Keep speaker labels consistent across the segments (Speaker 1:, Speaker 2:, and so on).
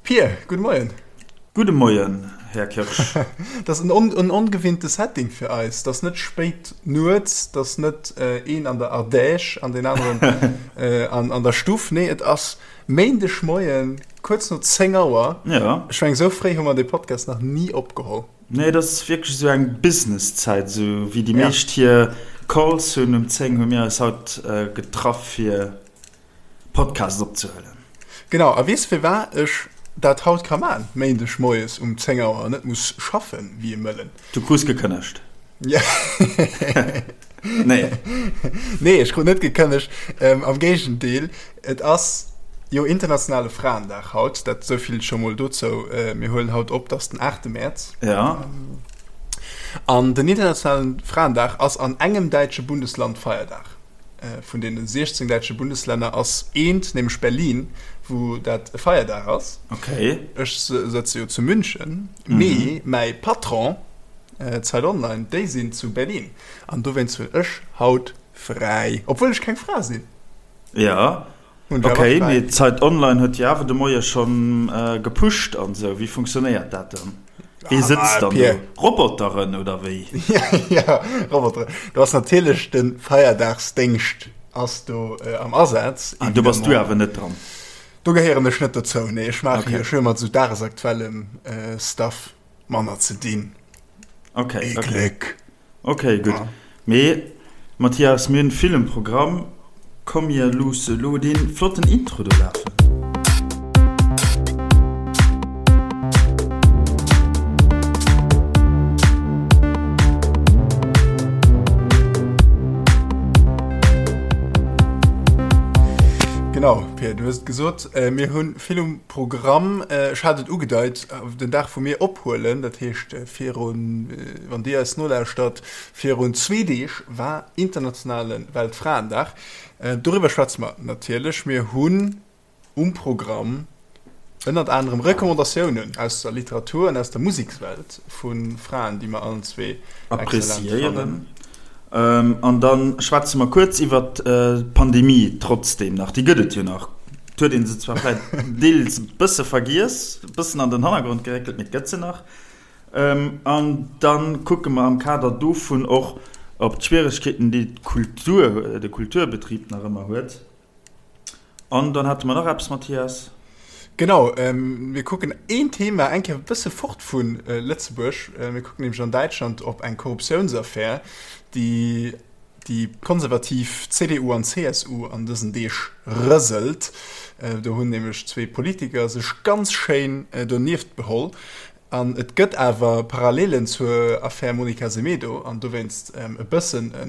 Speaker 1: Pir, gudde Moien.
Speaker 2: Gudde Moien, Här Kirsch.
Speaker 1: Dat ass en ongewinnte Setting fir eis. Dat ass net spéit nuets, dat ass net een an der Ardèche an deen aneren an der Stuff. Nee, et ass Méindeg Moien, kuerz no 10 Auer.
Speaker 2: Ja.
Speaker 1: Ech mengen, esou fréi hu mer dee Podcast nach ni opgeholl.
Speaker 2: Nee, dat ass wierklech esou eng Businesszäit, esou wéi déi meescht hir Calls hunn um 10, hu mir eis haut getraff fir Podcast opzehuelen.
Speaker 1: Genau, a weess firwat ech dat haut ka man, Méindeg moies um 10 Auer an net muss schaffen wéi e Mëllen?
Speaker 2: Du krus gekënnegt.
Speaker 1: Ja.
Speaker 2: Nee.
Speaker 1: Nee, ech krut net gekënnegt. Ähm, am Géigendeel, et ass jo internationale Fraendag haut, dat souvill scho mol dozou. Äh, mir huelen haut op, dat ass den 8. Mäerz.
Speaker 2: Ja.
Speaker 1: An den internationalen Fraendag ass an engem däitsche Bundesland Feierdag. Vun deene 16 däitsche Bundeslänner ass eent, nämlech Berlin, wou dat e Feierdag ass.
Speaker 2: Okay.
Speaker 1: Ech sëtze jo zu München, mee mäi Patron, Zeit Online, déi sinn zu Berlin. An dowéinst hunn ech haut fräi, obwuel ech keng Fra sinn.
Speaker 2: Jo, okay, mee Zeit Online huet jo awer de Moie schonn gepusht an esou. Wéi funktionéiert dat dann? Wee sëtzt dann do? Roboteren oder wéi?
Speaker 1: Jo, Roboteren. Do ass natierlech de Feierdagsdéngscht ass do am Asaz.
Speaker 2: An do bass du awer net dran?
Speaker 1: Do gehéieren ech net dozou, nee. Ech maache jo, ech hu jo mat esou dagesaktuellem Stuff manner ze dinn.
Speaker 2: Okay, okay. Gléck. Okay, gutt. Mee Mathias, mir hunn vill um Programm. Komm mir loosse lo dee flotten Intro do lafen.
Speaker 1: Genau, Pir, du hues et gesot, mir hu vill um Programm. Ech hat et ugedeit, den Dag wou mir ophuelen, dat heescht virun, wann Dir eis nolauschtert, virun zwee Deeg war internationale Weltfraendag. Doriwwer schwätze mer natierlech. Mir hunn um Programm ënnert anerem Recommandatiounen aus der Literatur an aus der Musekswelt vu Fraen, déi mer allen zwee
Speaker 2: exzellent fannen. An da schwätze mer kuerz iwwert d'Pandemie trotzdeem nach. Déi gëtt et jo nach. Et huet ee se zwar vläicht deels e bësse vergiess, e bëssen an den Hannergrond geréckelt, mee et gëtt se nach. An da kucke mer am Kader dovun och op d'Schwieregkeeten, déi d'Kultur, de Kulturbetrib nach ëmmer huet. An dann hate mer nach eppes, Mathias.
Speaker 1: Genau, mir kucken een Thema eng Kéier e bësse fort vu Lëtzebuerg. Mir kucken nämlech an Däitschland op eng Korruptiounsaffär, déi déi konservativ CDU an CSU an dësen Deeg rëselt. Do hunn nämlech zwee Politiker sech ganz schéin donieft beholl. An et gëtt awer Parallelen zur Affär Monica Semedo an dowéinst e bëssen e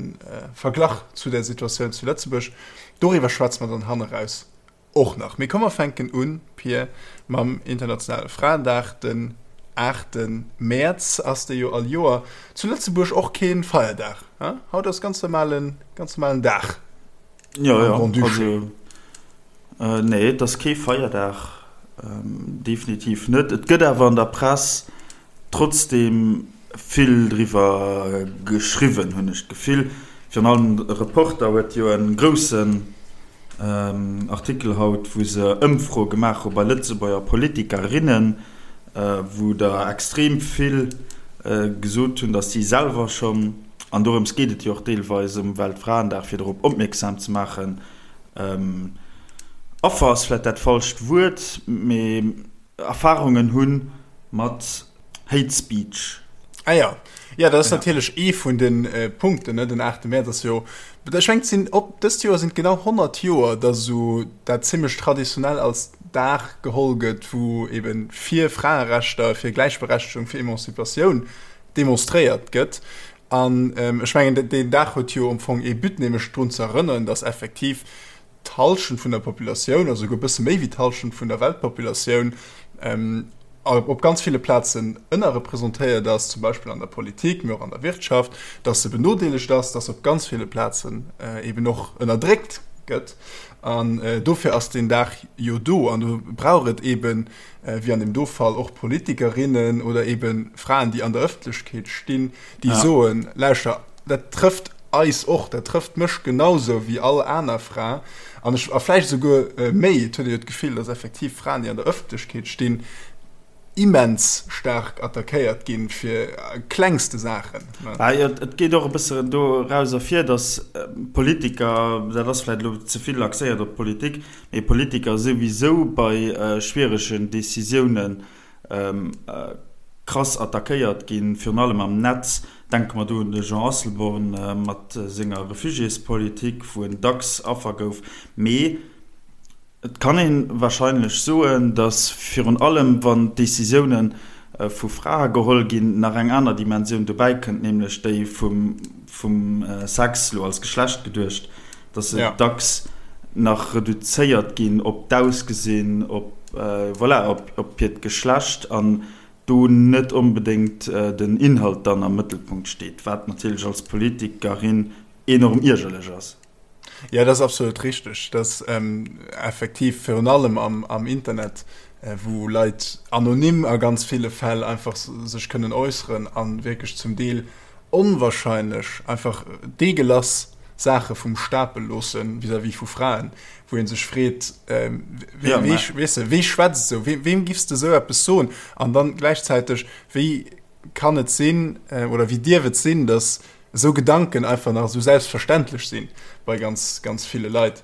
Speaker 1: Verglach zu der Situatioun zu Lëtzebuerg. Doriwwer schwätze mer dann hanneraus Och nach. Mee komm mer fänken un, Pir, mam internationale Fraendag. Den 8 Mäerz ass dee jo all Joer. Zu Lëtzebuerg och kee Feierdag, he? Haut ass ganz normalen, ganz normalen Dag
Speaker 2: Jo, am jo, Grand-Duché. also nee, et ass kee Feierdag, definitiv net. Et gëtt awer an der Press trotzdeem vill driwwer geschriwwen, hunn ech d'Gefill. Virun allem de Reporter huet jo e groussen Artikel haut, wou se Ëmfroe gemaach hu bei Lëtzebuerger Politikerinnen, wou der extrem vill gesot hunn, datt si selwer schonn, an dorëms geet et jo och deelweis um Weltfraendag, fir dorop opmierksam ze maachen, Affer ass vläicht dat falscht Wuert, mee Erfarungen hu mat Hate Speech.
Speaker 1: Ah ja, ja dat ass natierlech ee vun de Punkten, ne? Den 8 Mäerz ass jo, ech mengen et sinn op dëst Joer sinn et genau 100 Joer, datt esou dat zimmlech traditionell als Dag geholl gëtt, wou eben fir Fraerechter, fir Gläichberechtegung, fir Emanzipatioun demonstréiert gëtt. An ech mengen deen Dag huet jo am Fong ee But, nämlech drun ze erënneren, datt effektiv d'Hallschent vun der Populatioun, also souguer e bësse méi wéi d'Hallschent vun der Weltpopulatioun, op ganz ville Plazen ënnerrepresentéiert ass, zum Beispill an der Politik, mee och an der Wirtschaft, dass se benodeelegt ass, dass se op ganz ville Plazen eben och ënnerdréckt gëtt. An dofir ass deen Dag jo do. An do brauch et eben, wéi an deem do Fall, och Politikerinnen oder eben Fraen, déi an der Ëffentlechkeet stinn, déi soen, Lauschter, dat trëfft. eis och, dat trëfft mech genausou wéi all aner Fra an ech, a vläicht esouguer méi. Et huet ee jo d'Gefill, dass effektiv Fraen, déi an der Ëffentlechkeet stinn, immens staark attackéiert ginn fir klengste Saachen.
Speaker 2: Ah jo, et geet och e bëssen doraus ervir, datt Politiker, dat ass vläicht elo ze vill axéiert op d'Politik, mee Politiker souwisou bei schwieregen Decisiounen krass attackéiert ginn, virun allem am Netz. Denke mer do un de Jean Asselborn mat senger Refugiéspolitik, wou en dacks Affer gouf. Mee Et kann ee warscheinlech soen, datt virun allem wann d'Decisioune vu Frae geholl ginn, nach eng aner Dimensioun dobäi kënnt, nämlech déi vum Sex, elo als Geschlecht geduecht, datt se dacks nach reduzéiert ginn op d'Ausgesinn, op, voilà, op hiert Geschlecht an do net onbedéngt den Inhalt dann am Mëttelpunkt steet, wat natierlech als Politikerin enorm iergerlech ass.
Speaker 1: Ja, dat ass absolut richteg. Dat effektiv virun allem am, am Internet, wou Leit anonym a ganz ville Fäll einfach sech kënnen äusseren a wierklech zum Deel onwahrscheinlech einfach deegelass Saache vum Stapel loosse vis-à-vis vu Fraen, wou ee sech freet, wee, weess de, wee schwätzt esou, weem giffs de esou eppes soen? An dann gläichzäiteg, wéi kann et sinn oder wéi dierf et sinn, datt esou Gedanken einfach nach esou selbstverständlech sinn bei ganz, ganz ville Leit.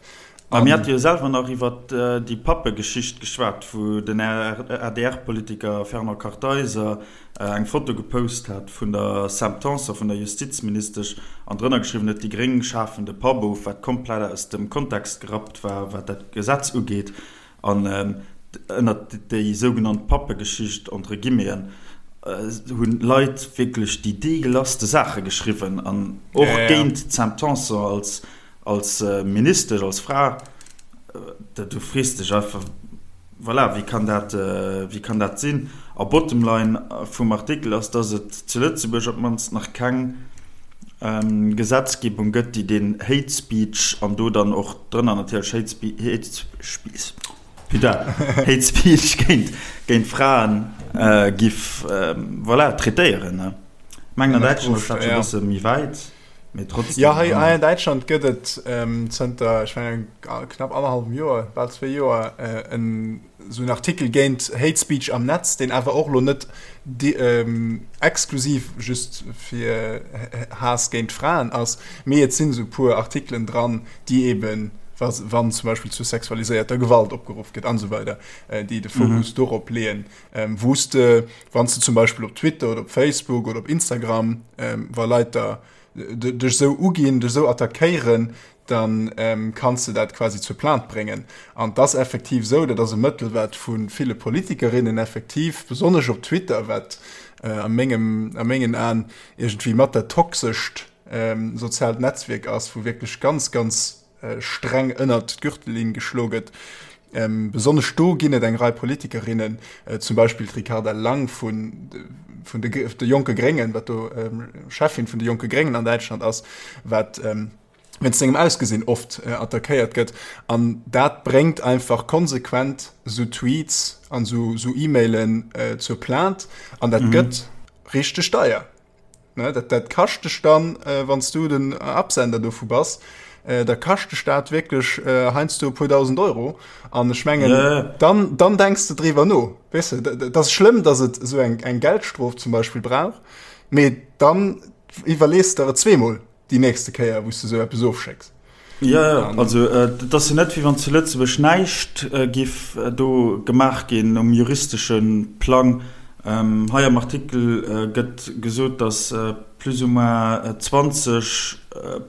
Speaker 2: A mir hate jo selwer nach iwwer déi Pappe-Geschicht geschwat, wou den ADR-Politiker Fernand Kartheiser eng Foto gepost hat vun der Sam Tanson, vun der Justizministesch, an drënner geschriwwen huet, déi Gréng schafen de Papp of, wat komplett aus dem Kontext gerappt war, wat dat Gesetz ugeet. An ënnert déi sougenannt Pappegeschicht, entre guillemeten, hunn Leit wierklech déi deegelasste Saache geschriwwen an och géint d'Sam Tanson als, als Ministesch, als Fra. Du frees dech einfach, voilà, wéi kann dat, wéi kann dat sinn? A bottom line vum Artikel ass, dass et zu Lëtzebuerg op d'mannst nach keng Gesetzgebung gëtt, déi deen Hate Speech, an do dann och drënner natierlech Hate Speech, putain, Hate Speech géint, géint Fraen giff, voilà, traitéieren. Ech mengen an Däitschland ass dat scho e bësse méi wäit, mee trotzdem.
Speaker 1: Jo, hei an Däitschland gëtt et zënter, ech mengen, knapp annerhallwem Joer, bal zwee Joer, en esou en Artikel géint Hate Speech am Netz, deen awer och elo net exklusiv just fir Haass géint Fraen ass, mee et sinn esou e puer Artikelen dran, déi eben, wann zum Beispill zu sexualiséierter Gewalt opgeruff gëtt an esou weider, déi de Fokus dorop leeën, wou s de, wann s de zum Beispill op Twitter oder op Facebook oder op Instagram, wa Leit der dech esou uginn, dech esou attackéieren, dann kanns de dat quasi zur Plainte bréngen. An et ass effektiv esou, dat ass e Mëttel, wat vu ville Politikerinnen effektiv, besonnesch op Twitter, wat a mengem, a mengen Aen iergendwéi mat dat toxescht soziaalt Netzwierk ass, wou wierklech ganz, ganz streng ënnert d'Gürtellinn geschlo gëtt, besonnesch do ginn et eng Rei Politikerinnen, zum Beispill d'Ricarda Lang vun vun de de jonke Gréngen, wat do Cheffin vun de jonke Gréngen an Däitschland ass, wat wéinst sengem Ausgesinn oft attackéiert gëtt. An dat bréngt einfach konsequent esou Tweets an esou E-Mailen zur Plainte. An dat gëtt richteg deier. Dat, dat kascht dech dann, wann s du den Absender dovu bass, da kascht dech dat wierklech heiansdo e puer dausend Euro. An ech mengen, dann, dann denks de driwwer no. Weess de, dat ass schlëmm, datt et esou eng, eng Geldstrof zum Beispill brauch, mee dann iwwerlees de der et zweemol. déi nächste Kéier, wou s de esou eppes ofschécks.
Speaker 2: Jo, jo, also et ass jo net, wéi wann zu Lëtzebuerg näischt giff do gemaach ginn um juristesche Plang. Hei am Artikel gëtt gesot, datt plus ou moins 20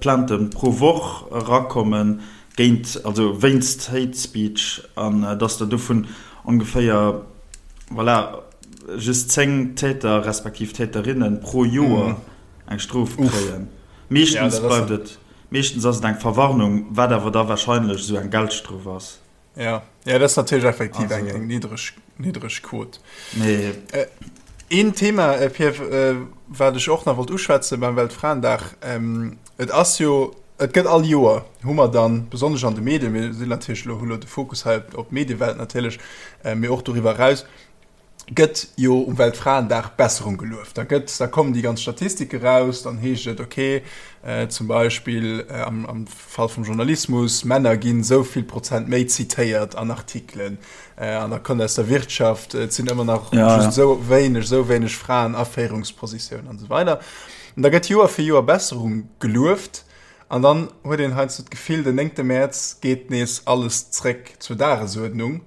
Speaker 2: Plaintë pro Woch erakomme géint, also wéinst Hate Speech an datt der dovun ongeféier, voilà, just 10 Täter respektiv Täterinne pro Joer eng Strof kréien. Meeschtens bleift et, meeschtens ass et eng Verwarnung, wat awer da wahrscheinlech esou eng Geldstrof ass.
Speaker 1: Ja, ja, dat ass natierlech effektiv eng, eng niddreg, niddreg Quot.
Speaker 2: Mee.
Speaker 1: Een Thema, Pierre, wat ech och nach wollt uschwätzen beim Weltfraendag, et ass jo, et gëtt all Joer, hu mer dann, besonnesch an de Medien, mir sinn natierlech elo, hu elo de Fokus hei op d'Mediewelt natierlech, mee och doriwwer eraus. Gëtt jo um Weltfraendag Besserung gelueft. Da gëtt, da kommen déi ganz Statistike raus, dann heescht et, okay, zum Beispill am, am Fall vum Journalismus, Männer ginn esou vill Prozent méi zitéiert an Artikelen, an da kënnt aus der Wirtschaft, et sinn ëmmer nach just esou wéineg, esou wéineg Fraen a Féierungspositiounen an esou weider. An da gëtt Joer fir Joer Besserung gelueft an dann huet een heiansdo d'Gefill, den néngte Mäerz geet nees alles zréck zur Dagesuerdnung.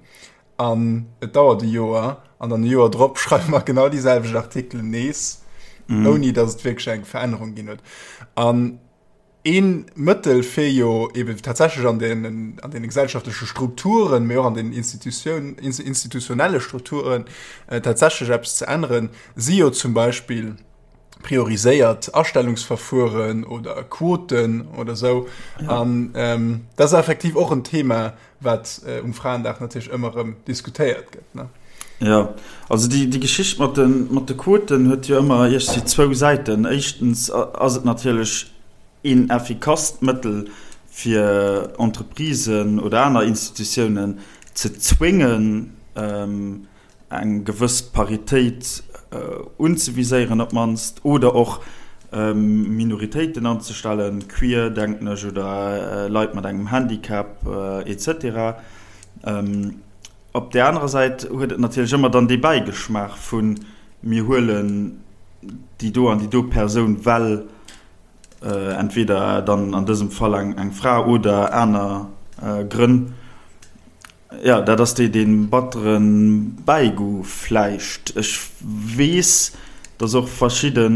Speaker 1: An et dauert e Joer, an dann e Joer drop schreiwe mer genau déi selwecht Artikelen nees, mm. ouni datt et wierklech eng Verännerung ginn huet. An ee Mëttel fir jo eben tatsächlech an den, an den gesellschaftleche Strukturen, mee och an den Institutioun, institutionelle Strukturen äh, tatsächlech eppes ze änneren, si jo zum Beispill prioriséiert Astellungsverfueren oder Quoten oder sou. Ja. An ähm, dat ass effektiv och en Thema, wat um Fraendag natierlech ëmmer erëm diskutéiert gëtt, ne?
Speaker 2: Jo, also déi, déi Geschicht mat de, mat de Quoten huet jo ëmmer iergendwéi zwou Säiten. Éischtens ass et natierlech een effikasst Mëttel, fir Entreprisen oder aner Institutiounen ze zwéngen, eng gewëss Paritéit unzeviséieren op d'mannst, oder och Minoritéiten anzestellen, queer, denken ech, oder Leit mat engem Handicap etc. Op där anerer Säit huet et natierlech ëmmer dann dee Bäigeschmaach vu mir huelen déi do an déi do Persoun, well entweder dann an dësem Fall eng Fra oder aner Grënn. Jo, dat ass dee battere Bäigoût vläicht. Ech weess, datt och verschidde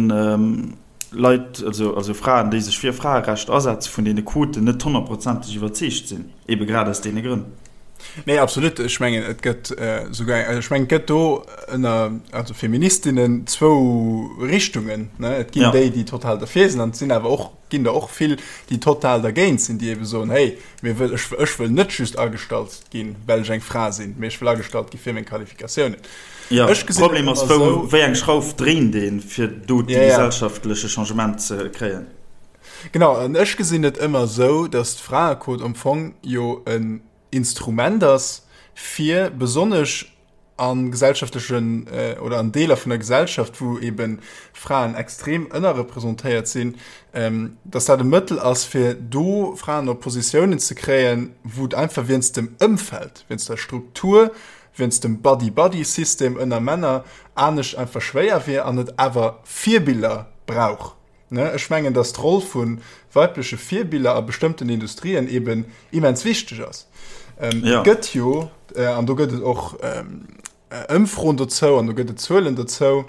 Speaker 2: Leit, also Fraen, déi sech fir Fraerecht asetzen, vun deene Quoten net honnertprozenteg iwwerzeegt sinn, ebe grad aus deene Grënn.
Speaker 1: Nee, absolut. Ech mengen, et gëtt souguer, ech mengen, et gëtt do ënner, also Feministinnen zwou Richtungen, ne? Et ginn déi, déi total derfir sinn, an et sinn awer och ginn der och vill, déi total dergéint sinn, déi ebe soen, hey, mir wëll, ech, ech wëll net just agestallt ginn, well ech eng Fra sinn, mee ech wëll agestallt gi fir meng Qualifikatiounen.
Speaker 2: Jo, Ech gesinn et Problem ass, ëmmer wou, esou. wéi eng Schrauf dréint een, fir do déi Ja, ja. gesellschaftleche Changement ze kréien?
Speaker 1: Genau, an ech gesinn et ëmmer esou, datt d'Fraequot am Fong jo en Instrument ass, fir besonnesch a gesellschaftlechen oder an Deeler vun der Gesellschaft, wou ebe Fraen extrem ënnerrepresentéiert sinn, dass dat e Mëttel ass, fir do Fraen op Positiounen ze kréien, wou et einfach wéinst dem Ëmfeld, wéinst der Struktur, wéinst dem Buddy-Buddy-System ënner Männer anescht einfach schwéier wier an et awer Virbiller brauch. Ech mengen, dass d'Roll vu weibleche Virbiller a bestëmmten Industrien eben immens wichteg ass. Et gëtt jo, an do gëtt et och Ëmfroen dozou an do gëtt et Zuelen dozou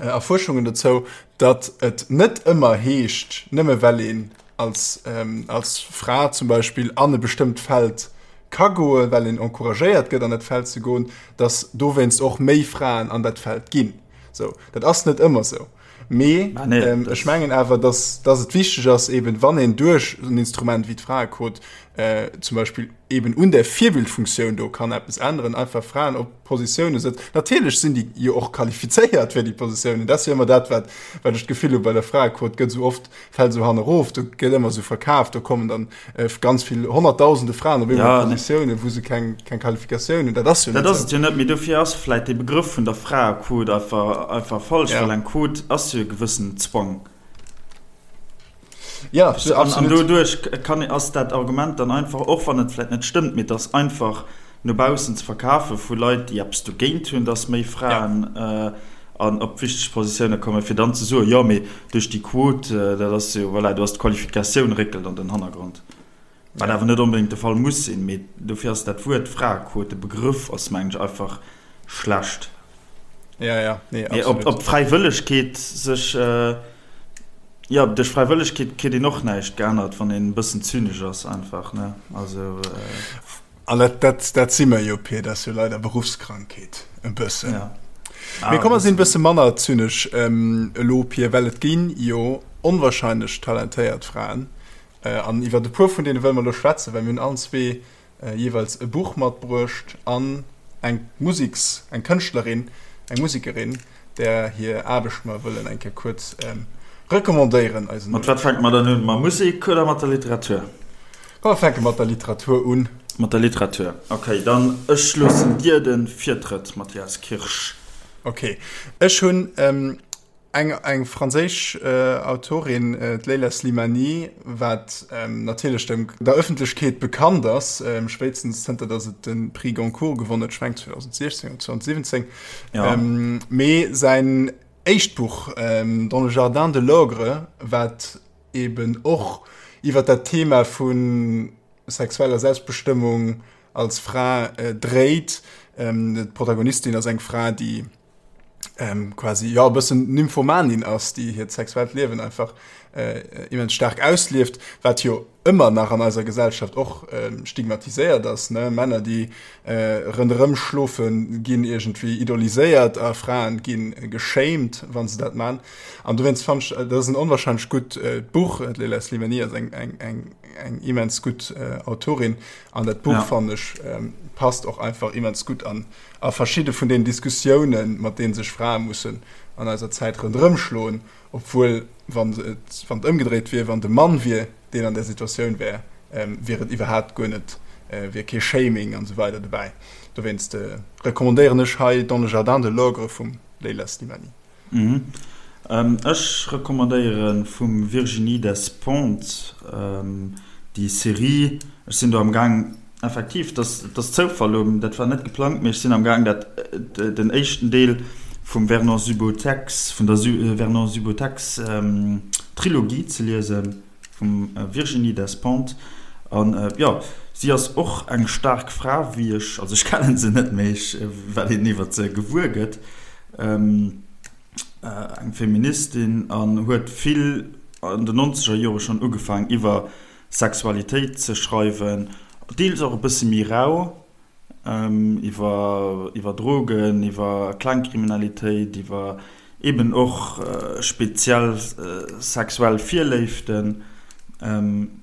Speaker 1: a Fuerschungen dozou, datt et net ëmmer heescht, nëmme well een als, als Fra zum Beispill an e bestëmmt Feld ka goen, well een encouragéiert gëtt an dat Feld ze goen, datt dowéinst och méi Fraen an dat Feld ginn. Sou, dat ass net ëmmer sou. Mee ah, nee, ähm, ech mengen awer, dass, dass et wichteg ass, eben wann een duerch en Instrument wéi d'Fraequot äh, zum Beispill eben un der Virbildfunktioun do kann eppes änneren, einfach Fraen op Positioune setzt. Natierlech sinn déi jo och qualifizéiert fir déi Positiounen. Dat ass jo ëmmer dat, wat, wat ech d'Gefill hu bei der Fraequot gëtt esou oft fält esou hannerof, do gëtt ëmmer esou verkaaft, do kommen dann äh, ganz vill honnertdausende Fraen op eemol ja, Positiounen, wou se keng, keng Qualifikatioun hunn.
Speaker 2: Dat ass jo net. Dat ass et jo net, mee dofir ass vläit dee Begrëff vun der Fraequot einfach, einfach falsch, ja. well eng Quot ass jo e gewëssen Zwang. Ja, an, an doduerch kann, ass dat Argument dann einfach, och wann et vläit net stëmmt, mee et ass einfach no baussen ze verkafe vu Leit, déi eppes dogéint hunn, dass méi Fraen ja. äh, an op wichteg Positioune kommen, fir dann ze soen, jo mee duerch déi Quot, dat ass jo, voilà, do ass d'Qualifikatioun réckelt an den Hannergrond. Wat awer net onbedéngt de Fall muss sinn, mee dofir ass dat Wuert Fraequot, de Begrëff ass mengen ech einfach schlecht.
Speaker 1: Ja, ja,
Speaker 2: nee, absolut. Mee ob, ob d'Fräiwëllegkeet sech, jo, duerch Fräiwëllegkeet kritt een och näischt geännert, wann een e bëssen zynesch ass einfach, ne, also.
Speaker 1: An dat, dat, dat si mer jo, Pir, dat ass jo leider Beruffskrankheet e bëssen. Ja. Ah, Mee komm, mer sinn e bësse manner zynesch ähm, elo, Pir, well et ginn jo onwahrscheinlech talentéiert Fraen. Äh, an iwwer e puer vun deene wëlle mer elo schwätzen, well mir hunn allen zwee äh, jeeweils e Buch matbruecht an eng Musiks-, eng Kënschtlerin, eng Musekerin, där hir Aarbecht mer wëllen eng Kéier kuerz ähm, recommandéieren
Speaker 2: eisen. Mat wat fänke mer dann un? Mat Musek oder mat der Literatur?
Speaker 1: Komm, mer fänke mat der Literatur un.
Speaker 2: Mat der Literatur. Okay, dann ech loossen dir de Virtrëtt, Mathias Kirsch.
Speaker 1: Okay, ech hunn ähm, eng, eng franséisch äh, Autorin, äh, d'Leila Slimani, wat ähm, natierlech dem, der Ëffentlechkeet bekannt ass, ähm, spéitstens zënter datt et de Prix Goncourt gewonnen huet, ech meng 2016 oder 2017. Ja. Ähm, mee säin éischt Buch, ähm, Dans le jardin de l'ogre, wat eben och iwwer dat Thema vu sexueller Selbstbestëmmung als Fra dréit. D'Protagonistin ass eng Fra, déi quasi jo e bëssen Nymphomanin ass, déi hiert sexuellt Liewen einfach immens staark auslieft, wat jo ëmmer nach an eiser Gesellschaft och stigmatiséiert ass, ne? Männer, déi ronderëm schlofen, ginn iergendwéi idoliséiert a Fraen gi geshamed, wa se dat man. An dowéinst fannen ech, dat ass en onwahrscheinlech gutt Buch. D'Leila Slimani ass eng, eng, eng, eng immens gutt Autorin an dat Buch, fannen ech, passt och einfach immens gutt an a verschidde vun den Diskussiounen, mat deene sech Frae mussen an eiser Zäit ronderëm schloen, obwuel, wann et, wann et ëmgedréit wier, wann de Mann wier, deen an där Situatioun wär, wier et iwwerhaapt guer net, wier kee Shaming an esou weider dobäi. Dowéinst recommandéieren ech hei Dans le jardin de l'ogre vum Leila Slimani.
Speaker 2: Ech recommandéiere vum Virginie Despentes déi Serie. Ech sinn do am Gaang, effektiv, dat ass Zoufall elo, dat war net geplangt, mee ech sinn am Gaang dat den éischten Deel vum Vernon Subutex, vun der Vernon Subutex Trilogie ze liesen, vum Virginie Despentes. An jo, si ass och eng staark Fra, wéi ech, also ech kennen se net, mee ech, wat een iwwer se gewuer gëtt. Eng Feministin an huet vill an den nonzeger Jore schonn ugefaang iwwer Sexualitéit ze schreiwen, deels och e bësse méi rau, iwwer iwwer Drogen, iwwer Klengkriminalitéit, iwwer eben och speziell sexuell Virléiften.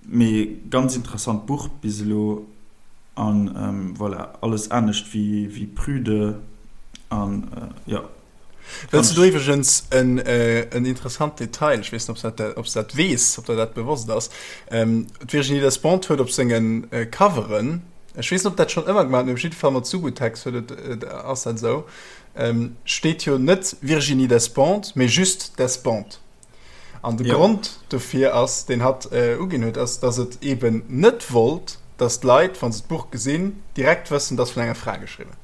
Speaker 2: Mee ganz interessant Buch bis elo. An voilà, alles anescht wéi prüde an jo.
Speaker 1: Wëlls du do iwwregens en en interessant Detail, ech weess net, ob s dat ob s dat weess, ob der dat bewosst ass, d'Virginie Despentes huet op senge Coveren, ech weess net, ob dat schonn ëmmer gemaach huet, mee op jidde Fall mat Subutex huet et ass dat esou, steet jo net Virginie Despentes, mee just Despentes. An de Grond dofir ass, deen hatt uginn huet, ass, datt et eeben net wollt, datt d'Leit, wa se d'Buch gesinn, direkt wëssen, et ass vun enger Fra geschriwwen.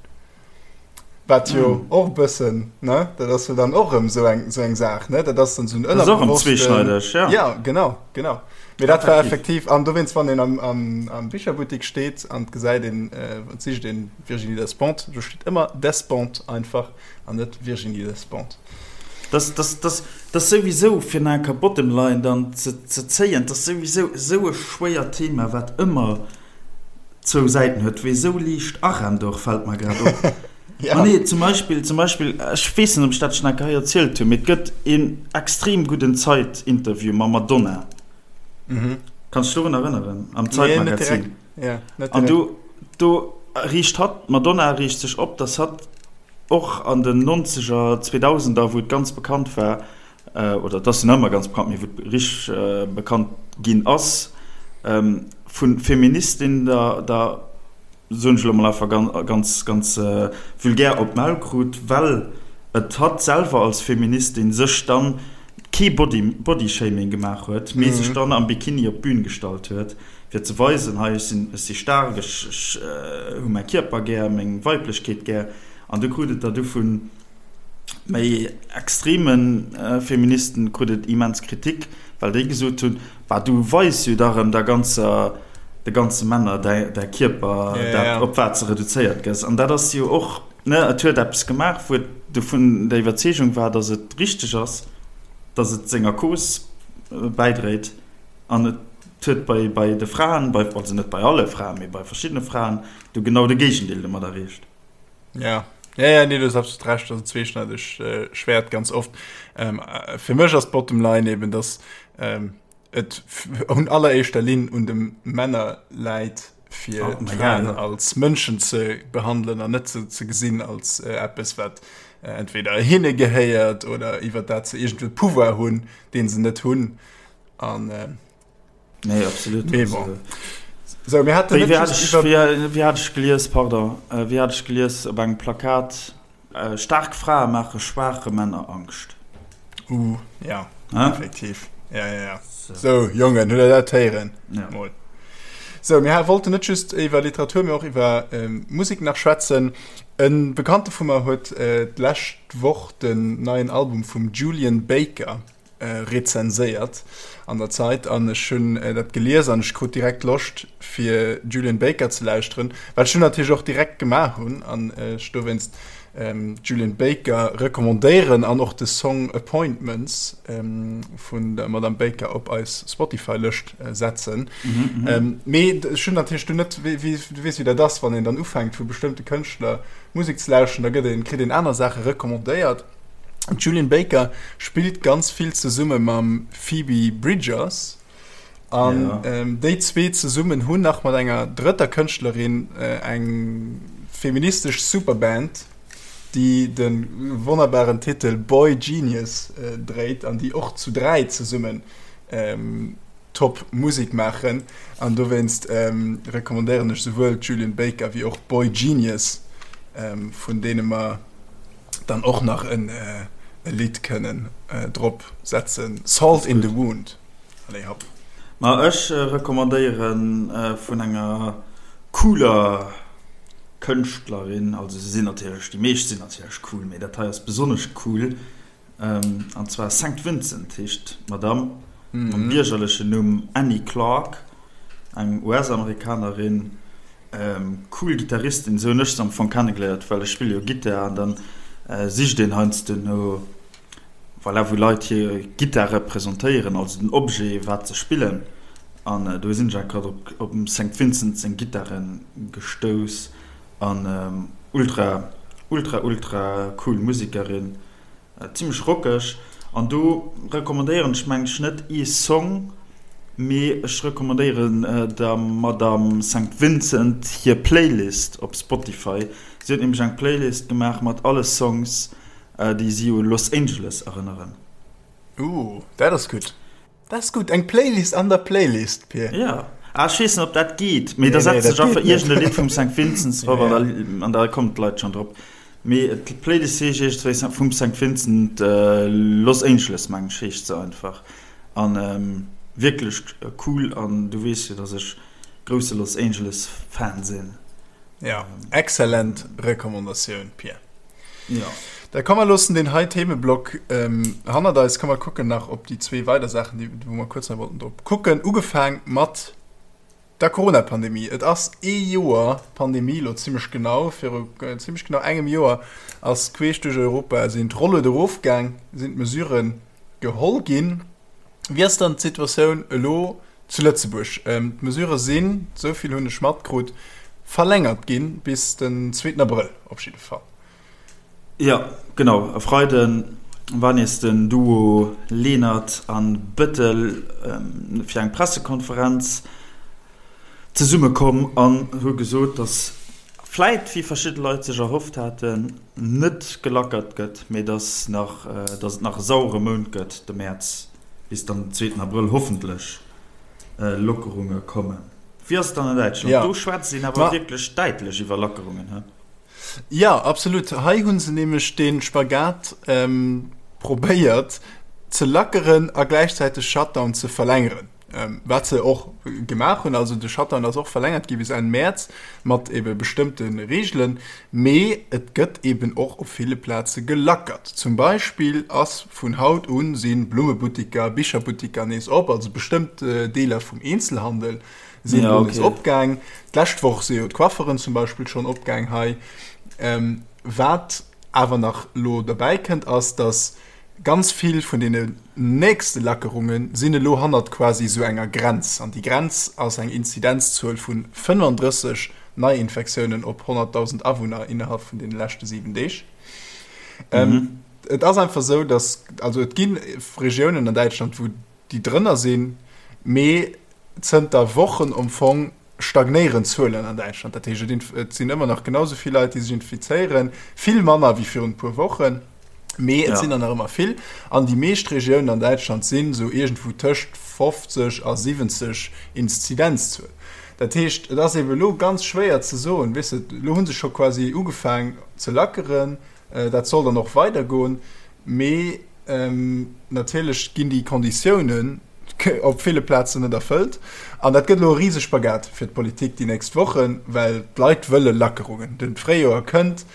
Speaker 1: Wat jo och e bëssen, ne, dat ass jo dann och erëm esou eng, esou eng Saach, ne, dat ass dann esou en
Speaker 2: ënnerbewossten. Dat ass och erëm zweeschneideg,
Speaker 1: ja. Ja, genau, genau. Mee dat war effektiv, an dowéinst, wann een am, am, am Bicherbuttek steet an et gesäit een, et sicht een Virginie Despentes, do steet ëmmer Despentes einfach an net Virginie Despentes.
Speaker 2: Dass, dass, dass, dass souwisou, fir nach eng Kéier Bottom Line dann ze, ze zéien, dass souwisou esou e schwéiert Thema, wat ëmmer zwou Säiten huet, wéi esou liicht arennt och, fält mer grad op. Ja. Ma nee, zum Beispill, zum Beispill, ech weess net, ob ech dat schonn eng Kéier hei erzielt hunn, mee et gëtt een extrem gudden Zeit-Interview mam Madonna. Mhm. Kanns du dech dorun erënneren? Am
Speaker 1: Nee, net direkt. Zeit-Magazin. Ja,
Speaker 2: net An direkt. do, do riicht hatt, d'Madonna riicht sech op, dass hatt Och an den Nonzeger, Zweedausender, wou et ganz bekannt war, oder et ass jo nach ëmmer ganz bekannt, mee wou et richteg bekannt ginn ass, vu Feministinnen da, da soen ech elo mol einfach ganz, ganz vulgär, op d'Maul krut, well et hatt selwer als Feministin sech dann kee Body, Bodyshaming gemaach huet, mee sech dann am Bikini op d'Bün gestallt huet. Fir ze weisen, hei, ech sinn, ech si staark, ech, ech hu mäi Kierper gär, meng Weiblechkeet gär. An du krut et der du vu méi extreme Feministen krut et immens Kritik, well déi gesot hunn, Bah, du weis jo da rëm der ganzer, de ganze Männer däi, däi Kierper, dat, op wat s de reduzéiert gëss. An dat ass jo och, ne, et huet eppes gemaach, wou et dovun der Iwwerzeegung war, datt et richteg ass, datt et senger Cause bäidréit. An et huet bei, bei de Fraen, bei, also net bei alle Fraen, mee bei verschiddene Fraen, du genau de Géigendeel domat erreecht.
Speaker 1: Ja. Ja, ja, nee, du hues absolut recht, dat ass en zweeschneidegt äh, Schwert ganz oft. Ähm, äh, fir mech ass d'Bottom Line eben, dass ähm, et un alleréischter Linn un de Männer läit, fir oh, d'Fraen ja, ja. als Mënschen ze behandelen an net ze, ze gesinn als äh, eppes, wat äh, entweder hinne gehéiert oder iwwer dat se iergendwéi Pouvoir hunn, deen se net hunn. An,
Speaker 2: äh, nee, absolut.
Speaker 1: Mee bon. Sou, mir haten
Speaker 2: net just iwwer. Wéi hat ech gelies, pardon, wéi hat ech gelies op engem Plakat, Staark Frae maache schwaache Männer Angscht.
Speaker 1: Uh, ja, effektiv. Ja, ja, ja. Sou, Jongen, hutt der dat héieren? Ja. Mol. Sou, mir wollten net just iwwer Literatur, mee och iwwer Musek nach schwätzen. E Bekannte vu mer huet d'lescht Woch den neien Album vum Julien Baker rezenséiert an der Zeit an ech hunn dat gelies an ech krut direkt Loscht fir Julien Baker ze lauschteren, wat ech dunn natierlech och direkt gemaach hunn an ech dowéinst Julien Baker recommandéieren an och de Song Appointments vun der Madame Baker op eis Spotify-Lëscht setzen. Mee ech hunn natierlech dunn net, wéi du weess wéi dat ass, wann een dann ufänkt vu bestëmmte Kënschtler Musek ze lauschteren, da gëtt een, kritt een aner Saache recommandéiert. D'Julian Baker spillt ganz vill zesumme mam Phoebe Bridgers an ja. ähm, déi zwee zesummen hunn nach mat enger drëtter Kënschtlerin äh, eng feministesch Superband, déi de wonnerbaren Titel Boy Genius äh, dréit an déi och zu dräi zesummen ähm, top Musek maachen an dowéinst ähm, recommandéieren ech souwuel d'Julian Baker wéi och Boy Genius, ähm, vun deene mer dann och nach en e Lidd kënnen drop setzen, Salt in the Wound. Allez hopp.
Speaker 2: Ma ech recommandéieren vun enger cooler Kënschtlerin, also se sinn natierlech, déi meescht sinn natierlech cool, mee dat hei ass besonnesch cool, an zwar Sankt Vincent heescht d'Madame, mam biergerlechen Numm Annie Clark, eng US-Amerikanerin. Cool Gittaristin, esou hunn ech se am Fong kennegeléiert, well ech spille jo Gittar an dann sicht een heiansdo no, voilà, wou Leit hir Gittar representéieren, also den Objet wat se spillen an do sinn ech grad op op dem Saint Vincent seng Gittare gestouss an ultra ultra ultra cool Musekerin. Zimlech rockeg an do recommandéieren ech mengen ech net ee Song, mee ech recommandéieren der Madame Saint Vincent hir Playlist op Spotify. Si huet nämlech eng Playlist gemaach mat alle Songs déi si u Los Angeles erënneren.
Speaker 1: Ooh, dat ass gutt. Dat ass gutt, eng Playlist an der Playlist, Pir.
Speaker 2: Ja. Ah, ech weess net, ob dat geet, mee da setzt sech einfach iergend e Lidd vum Saint Vincent drop an da, an da kommen d'Leit schonn drop. Mee d'Playlist heescht iergendwéi vum Saint Vincent Los Angeles, mengen ech, heescht se einfach. An wierklech cool an du weess jo, dass ech grousse Los Angeles Fan sinn.
Speaker 1: Ja, exzellent Recommandatioun, Pir.
Speaker 2: Ja.
Speaker 1: Da komm mer loossen deen hei Themeblock ähm, hannert eis. Komm mer kucken nach op déi zwee weider Saachen, déi, wou mer kuerz nach wollten drop kucken. Ugefaang mat der Corona-Pandemie. Et ass ee Joer Pandemie, lo zimmlech genau, viru äh, zimmlech genau engem Joer ass queesch duerch Europa sinn d'Rolluede erofgaang, sinn d'Mesuren geholl ginn. Wéi ass dann d'Situatioun elo zu Lëtzebuerg? D'Mesurë sinn, esou vill hunn ech matkrut, verlängert ginn bis den zweeten Abrëll op jidde Fall.
Speaker 2: Jo, genau. E Freide war nees den Duo Lenert a Bettel fir eng Pressekonferenz zesummekomm an hu gesot, datt vläit, wéi verschidde Leit sech erhofft haten, net gelackert gëtt, mee datt nach, datt et nach e sauere Mount gëtt, de Mäerz, bis dann den zweeten Abrëll hoffentlech Lockerunge kommen. Wéi ass et dann an Däitschland? Do schwätzt een awer wierklech däitlech iwwer Lackerungen, he?
Speaker 1: Jo, absolut. Hei hu se nämlech dee Spagat probéiert ze lackeren a gläichzäiteg Shutdown ze verlängeren. Wat se och gemaach hunn, also de Shutdown ass och verlängert gi bis Enn Mäerz mat ebe bestëmmte Reegelen, mee et gëtt eben och op ville Plaze gelackert. Zum Beispill ass vun haut u si Blummebuttiker, Bicherbuttiker nees op, also bestëmmt Deeler vum Eenzelhandel sinn elo nees opgaang. D'lescht Woch si jo d'Coifferen zum Beispill schonn opgaang hei. Wat awer nach elo derbäi kënnt ass, datt Ganz vill vun deene nächste Lackerunge sinn elo hannert quasi esou enger Grenz. An déi Grenz ass eng Inzidenzzuel vu 35 Neiinfektiounen op 100.000 Awunner innerhalb vun deene leschte 7 Deeg. Et ass einfach esou, datt, also et gi Regiounen an Däitschland, wou déi drënner sinn, mee zënter Wochen am Fong stagnéieren d'Zuelen an Däitschland. Dat heescht, et sinn ëmmer nach genau esou vill Leit, déi sech infizéieren, vill manner wéi virun e puer Wochen, mee et sinn der nach ëmmer vill. An déi meescht Regiounen an Däitschland sinn esou iergendwou tëscht 50 a 70 Inzidenzzuel. Dat heescht, et ass eeben elo ganz schwéier ze soen, weess de, elo hu se scho quasi ugefaang ze lackeren, dat soll dann och weidergoen, mee natierlech ginn déi Konditiounen op ville Plazen net erfëllt. An dat gëtt elo e Risespagat fir d'Politik déi nächst Wochen, well d'Leit wëlle Lackerungen. De Fréijoer kënnt,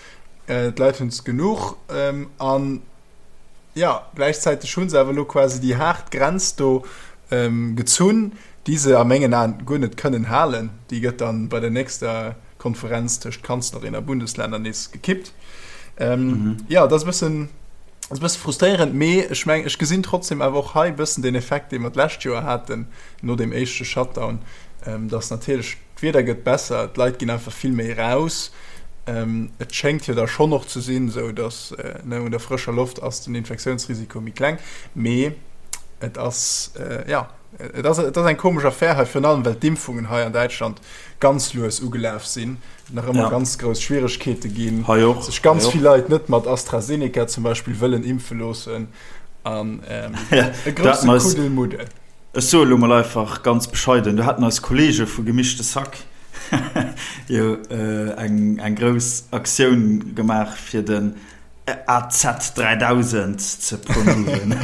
Speaker 1: d'Leit hunn es genuch an jo, gläichzäiteg hu se awer elo quasi déi haart Grenz do gezunn, déi se a mengen Aen guer net kënnen halen. Déi gëtt dann bei der nächster Konferenz tëscht Kanzlerin a Bundesländer nees gekippt. Jo, dat ass e bëssen, ass e bësse frustréierend, mee ech mengen, ech gesinn trotzdem awer och hei e bëssen den Effekt, dee mer d'lescht Joer haten no deem éischte Shutdown, dass natierlech d'Wieder gëtt besser, d'Leit ginn einfach vill méi raus. Et schéngt jo da schonn och ze sinn, esou dass, ne, un der frëscher Loft ass den Infektiounsrisiko méi kleng, mee et ass, jo, et ass, et ass eng komesch Affär hei, virun allem well d'Impfungen hei an Däitschland ganz lues ugelaf sinn, nach ëmmer ja. ganz grouss Schwieregkeete ginn,
Speaker 2: hei och,
Speaker 1: sech ganz vill Leit net mat AstraZeneca zum Beispill wëllen impfe loossen an ähm,
Speaker 2: ja, e grousse Kuddelmuddel. Ech soe lo mol einfach ganz bescheiden, do haten eis Kollege vu Gemischte Sack jo äh, eng, eng grouss Aktioun gemaach fir den AZ 3000 ze promoven.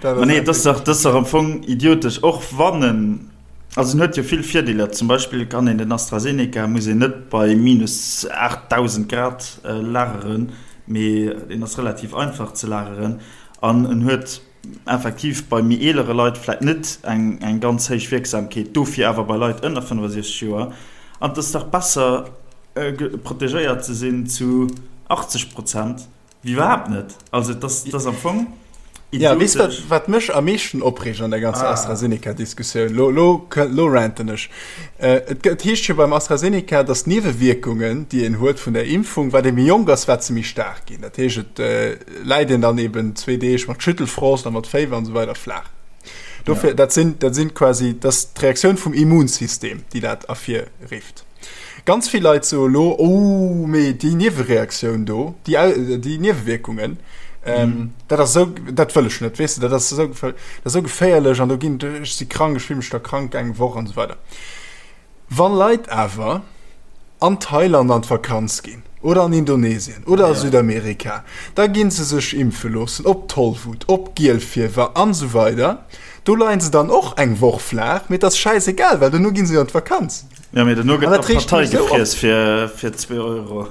Speaker 2: Ma nee, dat ass dach, dat ass dach am Fong idiotesch, och wann en, also en huet jo vill Virdeeler. Zum Beispill kann een den AstraZeneca, muss een net bei minus 8000 Grad lageren, mee deen ass relativ einfach ze lageren an en huet effektiv bei méi eelere Leit vläit net eng, eng ganz héich Wierksamkeet, dofir awer bei Leit ënner 65 Joer. An et ass dach besser protegéiert ze sinn zu 80 Prozent wéi iwwerhaapt net. Also et ass, et ass am Fong
Speaker 1: Ja, weess wat, idiotesch. wat mech am meeschten opreegt an der ganzer Ah. AstraZeneca-Diskussioun? Lo, lo, lo ranten ech. Äh, et gëtt, heescht jo beim AstraZeneca, datt d'Niewewierkungen, déi een huet vun der Impfung, wat ee méi jonk ass, wat se méi staark ginn. Dat heescht, et äh, läit een dann eben zwee Deeg mat Schüttelfrost a mat Féiwer an esou weider flaach. Dofir, ja. dat sinn, dat sinn quasi, dat ass d'Reaktioun vum Immunsystem, déi dat ervirrifft. Ganz vill Leit soe lo, oh, mee déi Niewereaktioun do, déi, déi Niewewierkungen, ähm, mhm. dat ass sou, dat wëll ech net, weess de, dat ass sou, dat ass sou geféierlech an do ginn, ech si krank, ech fill mech da krank eng Woch an esou weider. Wann Leit awer an Thailand an d'Vakanz ginn oder an Indonesien oder a Südamerika, da ginn se sech impfe loossen op Tollwut, op Gielfiewer an esou weider. Do leien se dann och eng Woch flaach, mee et ass schäisegal, well dono ginn se jo an d'Vakanz.
Speaker 2: Jo, mee dono gëtt da Partei gefriess fir zwee Euro.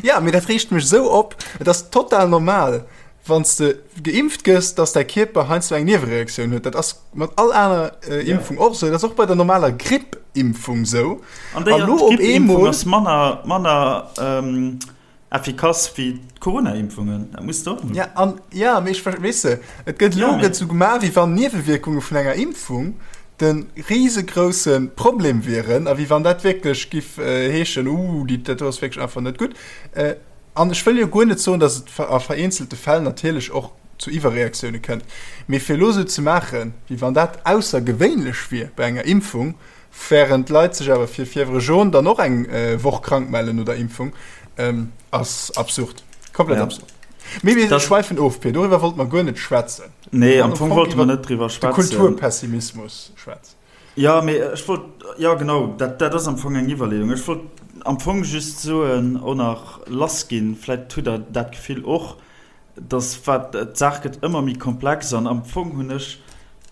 Speaker 1: Jo, mee dat reegt mech esou op. Et ass total normal, Wann s de geimpft gëss, dass däi Kierper heiansdo eng Niewereaktioun huet. Dat ass mat all aner Impfung och esou. Dat ass och bei der normaler Grippimpfung esou.
Speaker 2: An déi Grippimpfung ass manner, manner effikass wéi d'Corona-Impfungen. Dat muss de och.
Speaker 1: Ja, an, ja, mee ech, weess de, et gëtt elo gëtt esou gemaach, wéi wann Niewewierkunge vun enger Impfung de risegrousse Problem wieren a wéi wann dat wierklech giff heeschen, Uh, déi, dat do ass wierklech einfach net gutt. An ech wëll jo guer net soen, datt et a vereenzelte Fäll natierlech och zu Iwwerreaktioune kënnt, mee fir elo esou ze maachen, wéi wann dat aussergewéinlech wier bei enger Impfung, wärend d'Leit sech awer fir Fièvre jaune dann och eng Woch krank mellen no der Impfung, ass absurd. Komplett absurd. Mee mir schwäifen of, Pir, doriwwer wollte mer guer net schwätzen.
Speaker 2: Nee, am Fong wollte mer net driwwer
Speaker 1: schwätzen. De Kulturpessimismus schwätzen.
Speaker 2: Jo, mee ech wollt, jo genau, dat, dat ass am Fong eng Iwwerleeung. Ech wollt am Fong just soen, och nach lassginn, vläicht hutt Der dat Gefill och, dass wat, d'Saach gëtt ëmmer méi komplex an am Fong hunn ech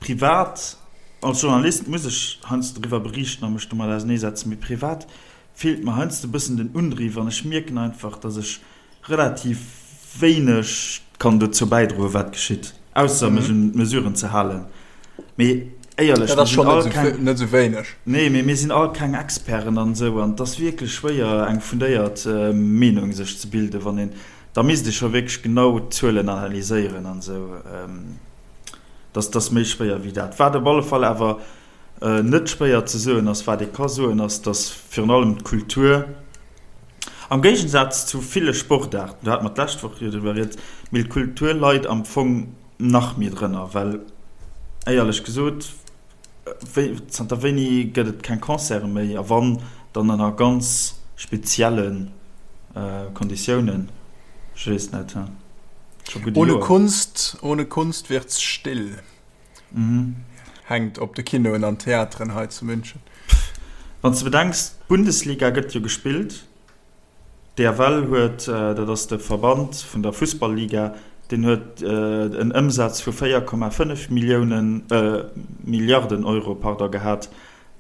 Speaker 2: privat, als Journalist muss ech heiansdo driwwer beriichten a mech domat auserneesetzen, mee privat feelt mer heiansdo e bëssen den Undriw an ech mierken einfach, dass ech relativ wéineg kann dozou bäidroen, wat geschitt, ausser mech un d'Mesuren ze halen. Mee éierlech,
Speaker 1: Dat ass schonn net esou, net esou wéineg.
Speaker 2: Nee, mee mir sinn all keng Experten an esou, an et ass wierklech schwéier, eng fundéiert Meenung sech ze bilden, wann een, da misst ee scho wierklech genau d'Zuelen analyséieren an esou. Dat ass méi schwéier wéi dat. Wat op alle Fall awer net schwéier ze soen ass, wat ee ka soen, ass, datt virun allem d'Kultur, Am Géigensaz zu ville Sportaarten, do hate mer d'lescht Woch jo driwwer rieds, mee d'Kultur leit am Fong nach méi drënner, well éierlech gesot, wéi, zanter wéini gëtt et keng Concerte méi a wann, dann ënner ganz spezielle Konditiounen, ech weess net,
Speaker 1: scho gutt e
Speaker 2: Ohne
Speaker 1: Joer. Kunst, ohne Kunst wird's still. hänkt op de Kinoen an Theateren hei zu München.
Speaker 2: Wann s de bedenks, d'Bundesliga gëtt jo gespillt, d'EFL huet, dat ass de Verband vun der Fussball-Liga, deen huet en Ëmsaz vu 4,5 Milliounen, Milliarden Euro, pardon, gehat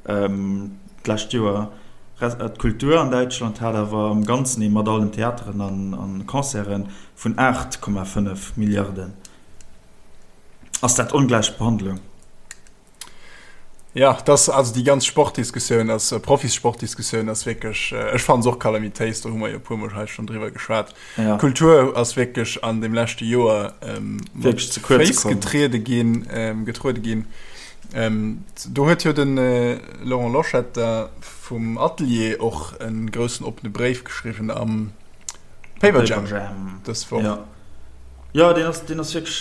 Speaker 2: d'lescht Joer. D'Kultur an Däitschland hat awer am Ganzen ee mat allen Theateren an Concerten vun 8,5 Milliarden. Ass dat ongläich Behandlung?
Speaker 1: Ja, das, also déi ganz Sportdiskussioun ass, äh, Profisportdiskussioun ass wierklech, äh, ech fannen se och kalamitéis, do hu mer jo e puer Mol hei schonn driwwer geschwat. Ja. Kultur ass wierklech an dem leschte Joer ähm,
Speaker 2: wierklech ze kuerz
Speaker 1: Féiss getriede ginn, ähm, getruede ginn. Ähm, do huet jo den äh, Laurent Loschetter vum Atelier och en groussen oppene Bréif geschriwwen am Paperjam
Speaker 2: dës Woch. Ja. Jo, deen ass, deen ass wierklech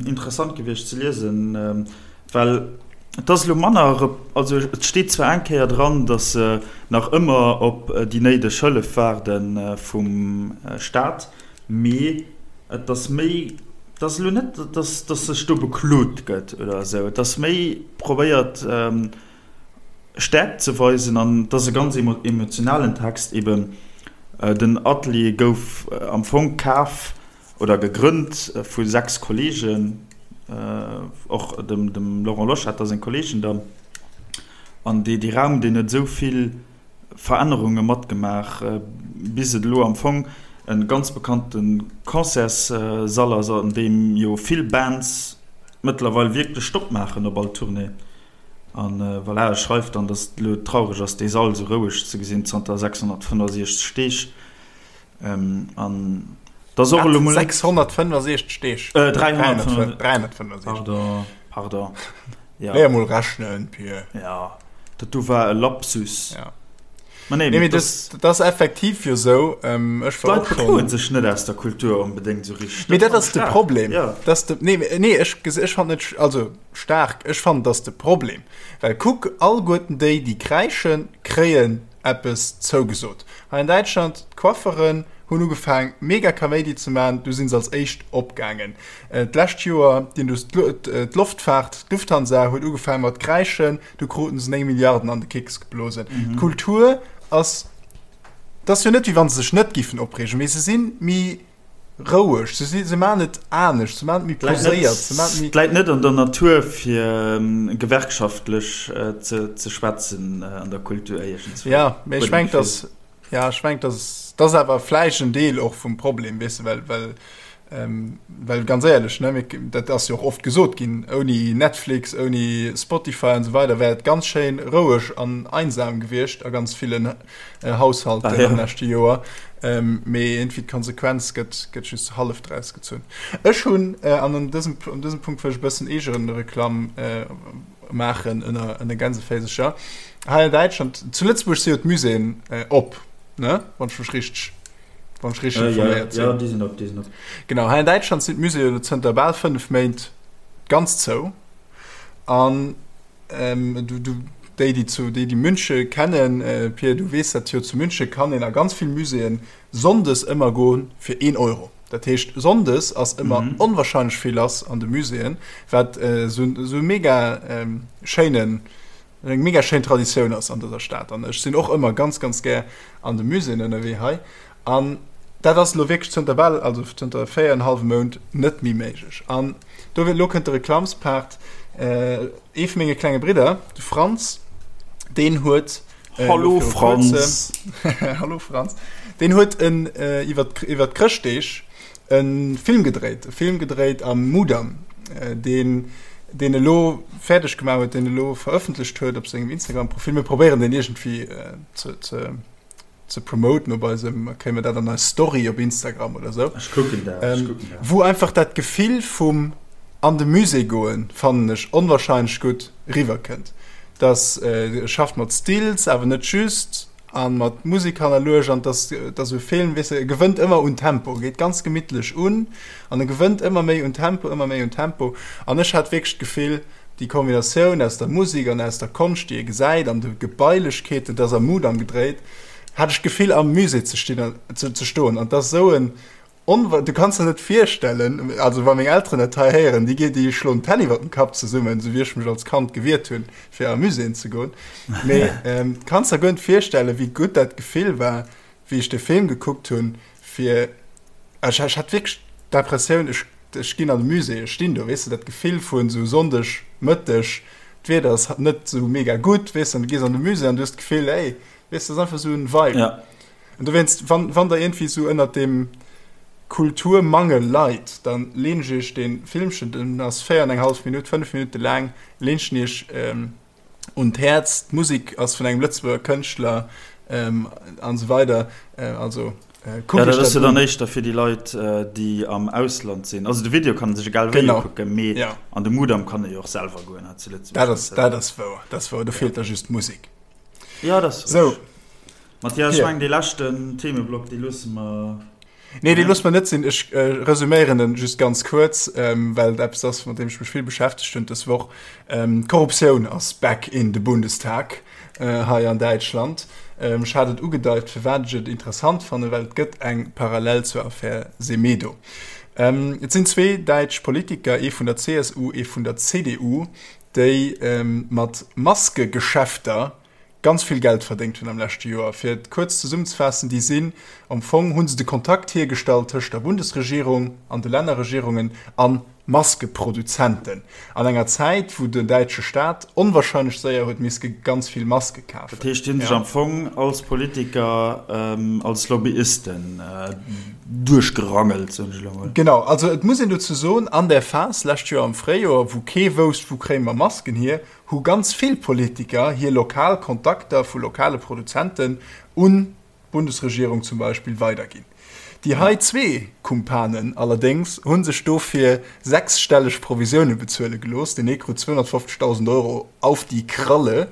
Speaker 2: interessant gewiescht ze liesen, well et ass elo manner, also et steet zwar eng Kéier dran, datt se nach ëmmer op déi néideg Hëllef waarde vum Staat, mee et ass méi, et ass elo net, datt sech do beklot gëtt oder esou, et ass méi probéiert Stäerkt ze weisen an et ass e ganz emotionalen Text eben. Den Atelier gouf am Fong kaf oder gegrënnt vu 6 Kollegen, och dem Laurent Loschetter seng Kollegen dann. An dee Raum, deen huet esou vill Verännerunge matgemaach, bis et elo am Fong e ganz bekannte Concertssall ass, an deem jo vill Bands mëttlerweil wierklech Stopp maachen op all Tournée. An voilà, e schreift dann, dass et elo traureg ass, dee Sall esou roueg ze gesinn zanter 665 Deeg. An dass och elo mol.
Speaker 1: 665 Deeg?
Speaker 2: 365. Pardon, pardon.
Speaker 1: Ja. Léier mol rechnen, Pir.
Speaker 2: Ja, dat do war e Lapsus.
Speaker 1: Ja. Ma nee, nee, das, das ass effektiv jo sou. Ähm,
Speaker 2: ech war och schon. D'Leit sech net aus der Kultur onbedéngt sou
Speaker 1: richteg. Mee dat ass de Problem. Ja. Das de, nee, nee, ech, ech fand net, also staark, ech fand das de Problem. Well kuck, allguerten déi, déi kräischen, kréien eppes zougesot. Hei an Däitschland, d'Coifferen hunn ugefaang mega Kaméidi ze man, du sinn se als éischt opgaangen. D'lescht Joer, d'Loftfaart, d'Lufthansa huet ugefaang mat kräischen, Du kruten se 9 Milliarden an de Kicks geblosen. Mhm. D'Kultur ass, dat ass jo net, wéi wann se sech net giffen opreegen, mee se sinn méi roueg, se si, se maan et anescht, se maan et méi
Speaker 2: poséiert, se maan et méi. Et läit net an der Natur fir gewerkschaftlech ze ze schwätzen an der Kultur
Speaker 1: iergendswou. Ja, mee ech mengen, dass Ja, ech mengen, dat ass awer vläicht en Deel och vum Problem, weess de, well, well, ähm, well ganz éierlech, ne, mir, dat ass jo och oft gesot ginn, ouni Netflix, ouni Spotify an esou weider wär et ganz schéin roueg an einsam gewiescht a ganz villen äh, Haushalten ah, ja. am leschte Joer. Ähm, mee irgendwie d'Konsequenz gëtt, gëtt just hallef draus gezunn. Ech hunn, äh, an an dësem, an dësem Punkt wëll ech e bëssen Eegereklamm äh, maachen ënner ënner Gänseféisercher. Hei an Däitschland, zu Lëtzebuerg si jo d'Muséeën äh, op, ne? Wann ech mech richteg, wann ech richteg
Speaker 2: äh, informéiert sinn. Ja, déi sinn op, déi sinn op.
Speaker 1: Genau, hei an Däitschland sinn d'Muséeën elo zënter bal 5 Méint ganz zou. An ähm, du, du, déi, déi zu, déi, déi Münche kennen, äh, Pir, du weess dat jo, zu Münche kann een a ganz vill Muséeën Sonndes ëmmer goen fir een Euro. Dat heescht Sonndes ass ëmmer mm -hmm. onwahrscheinlech vill lass an de Muséeën, wat äh, so, so mega ähm, schéinen eng mega schéin Traditioun ass an dëser Stad. An ech sinn och ëmmer ganz ganz gär an de Muséeën ënnerwee hei. An dat ass lo wierklech zënter bal also zënter 4,5 Mount net méi méiglech. An do lo kënnt de Reklamspart. Äh, ee vu menge klenge Bridder, de Franz, deen huet
Speaker 2: Äh, Hallo Franz.
Speaker 1: Hallo Franz. Den huet en äh, iwwer iwwer d'Chrëschtdeeg en Film gedréit, e Film gedréit am Mudam, äh, deen deen elo fäerdeg gemaach huet, deen elo verëffentlecht huet op sengem Instagram-Profil. Mir probéieren den iergendwéi äh, ze, ze, ze promoten op eisem, kréie mir dat an eis Story op Instagram oder sou.
Speaker 2: Ech kucken dat, ech kucken
Speaker 1: dat. Wou einfach dat Gefill vum an de Musée goen, fannen ech onwahrscheinlech gutt riwwerkënnt. Dass e schafft mat Stills, awer net just, a mat Musek hannerluecht an dass dass esou e Film, weess de, e gewënnt ëmmer un Tempo, e geet ganz gemittlech un an e gewënnt ëmmer méi un Tempo, ëmmer méi un Tempo. An ech hat wierklech d'Gefill, déi Kombinatioun aus der Musek an aus der Konscht, déi ee gesäit, an de Gebailechkeeten, dass am Mudam gedréit, hat ech d'Gefill am Musée ze stinn, ze stoen an dass esou en. Onwa du kanns der net virstellen, also wa meng Elteren dat hei héieren, déi déi schloen d'Hänn iwwer dem Kapp zesummen, esou wéi ech mech als Kand gewiert hunn, fir a Muséeën ze goen. Mee ähm, kanns der guer net virstellen, wéi gutt dat Gefill war, wéi ech de Film gekuckt hunn, fir ech, ech hat wierklech d'Impressioun, ech, ech ginn an de Musée, ech stinn do, weess de, dat Gefill vun esou Sonndeg Mëtteg, d'Wieder ass net esou mega gutt, weess de, an du gees an de Musée an du hues d'Gefill, ey, weess de, dat ass einfach esou en Vibe.
Speaker 2: Ja.
Speaker 1: An dowéinst, wann, wann der iergendwéi esou ënnert deem Kulturmangel leit, dann leen ech iech dee Filmchen, den ass 4 an eng hallef Minutt, 5 Minutte laang, leen ech en iech un d'Häerz. D'Musek ass vun engem Lëtzebuerger Kënschtler an esou weider. Also
Speaker 2: kuckt iech dat un. Ja, dat ass jo dann éischter fir déi Leit, déi am Ausland sinn. Also de Video kann ee sech egal wéi ukucken, mee an de Mudam kann ee jo och selwer goen hei zu
Speaker 1: Lëtzebuerg. Dat ass, dat ass wouer, dat ass wouer. Do feelt da just d'Musek.
Speaker 2: Ja, dat ass
Speaker 1: richteg.
Speaker 2: Mathias, ech mengen dee leschten Themeblock, dee loosse mer.
Speaker 1: Nee, dee loosse mer net sinn. Ech resuméieren en just ganz kuerz, well et eppes ass, mat deem ech mech vill beschäftegt hunn dës Woch. D'Korruptioun ass back in de Bundestag hei an Däitschland. Ech hat et ugedeit, firwat ech et interessant fannen, well et gëtt eng Parallel zur Affär Semedo. Et sinn zwee däitsch Politiker, ee vun der CSU, ee vun der CDU, déi mat Maskegeschäfter ganz vill Geld verdéngt hunn am leschte Joer. Fir et kuerz zesummzefaassen, déi sinn, am Fong hu se de Kontakt hiergestallt tëscht der Bundesregierung an de Lännerregierungen a Maskeproduzenten an enger Zäit, wou den däitsche Staat onwahrscheinlech séier huet miske ganz vill Maske kafen.
Speaker 2: Dat heescht, déi hunn sech am Fong als Politiker, als Lobbyisten duerchgerangelt, soen ech elo
Speaker 1: mol. Genau, also et muss een dozou soen, an där Phas lescht Joer am Fréijoer, wou kee wousst, wou kréie mer Masken hier, hu ganz vill Politiker hir lokal Kontakter vu lokale Produzenten un d'Bundesregierung zum Beispill weiderginn. Déi hei zwee Kumpanen allerdéngs hu sech dofir sechsstelleg Provisioune bezuele gelooss, den ee krut 250.000 Euro auf die Kralle.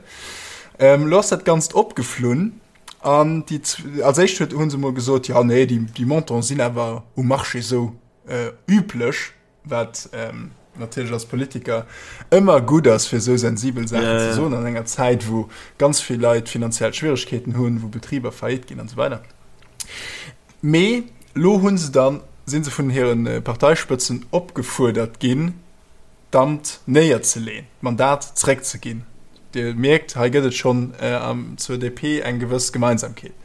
Speaker 1: Elo ass dat Ganzt opgeflunn an déi, als éischt huet hu se mol gesot, jo nee, déi Montanten sinn awer um Marché esou üblech. Wat natierlech als Politiker ëmmer gutt ass, fir esou sensibel Saachen ze soen an enger Zäit, wou ganz vill Leit finanziell Schwieregkeeten hunn, wou Betriber faillite ginn an esou weider. Mee elo hu se dann, si se vun hire Parteispëtzen opgefuerdert ginn, d'Amt néierzeleen, d'Mandat zréckzeginn. Dir mierkt, hei gëtt et schonn zur DP eng gewëss Gemeinsamkeet.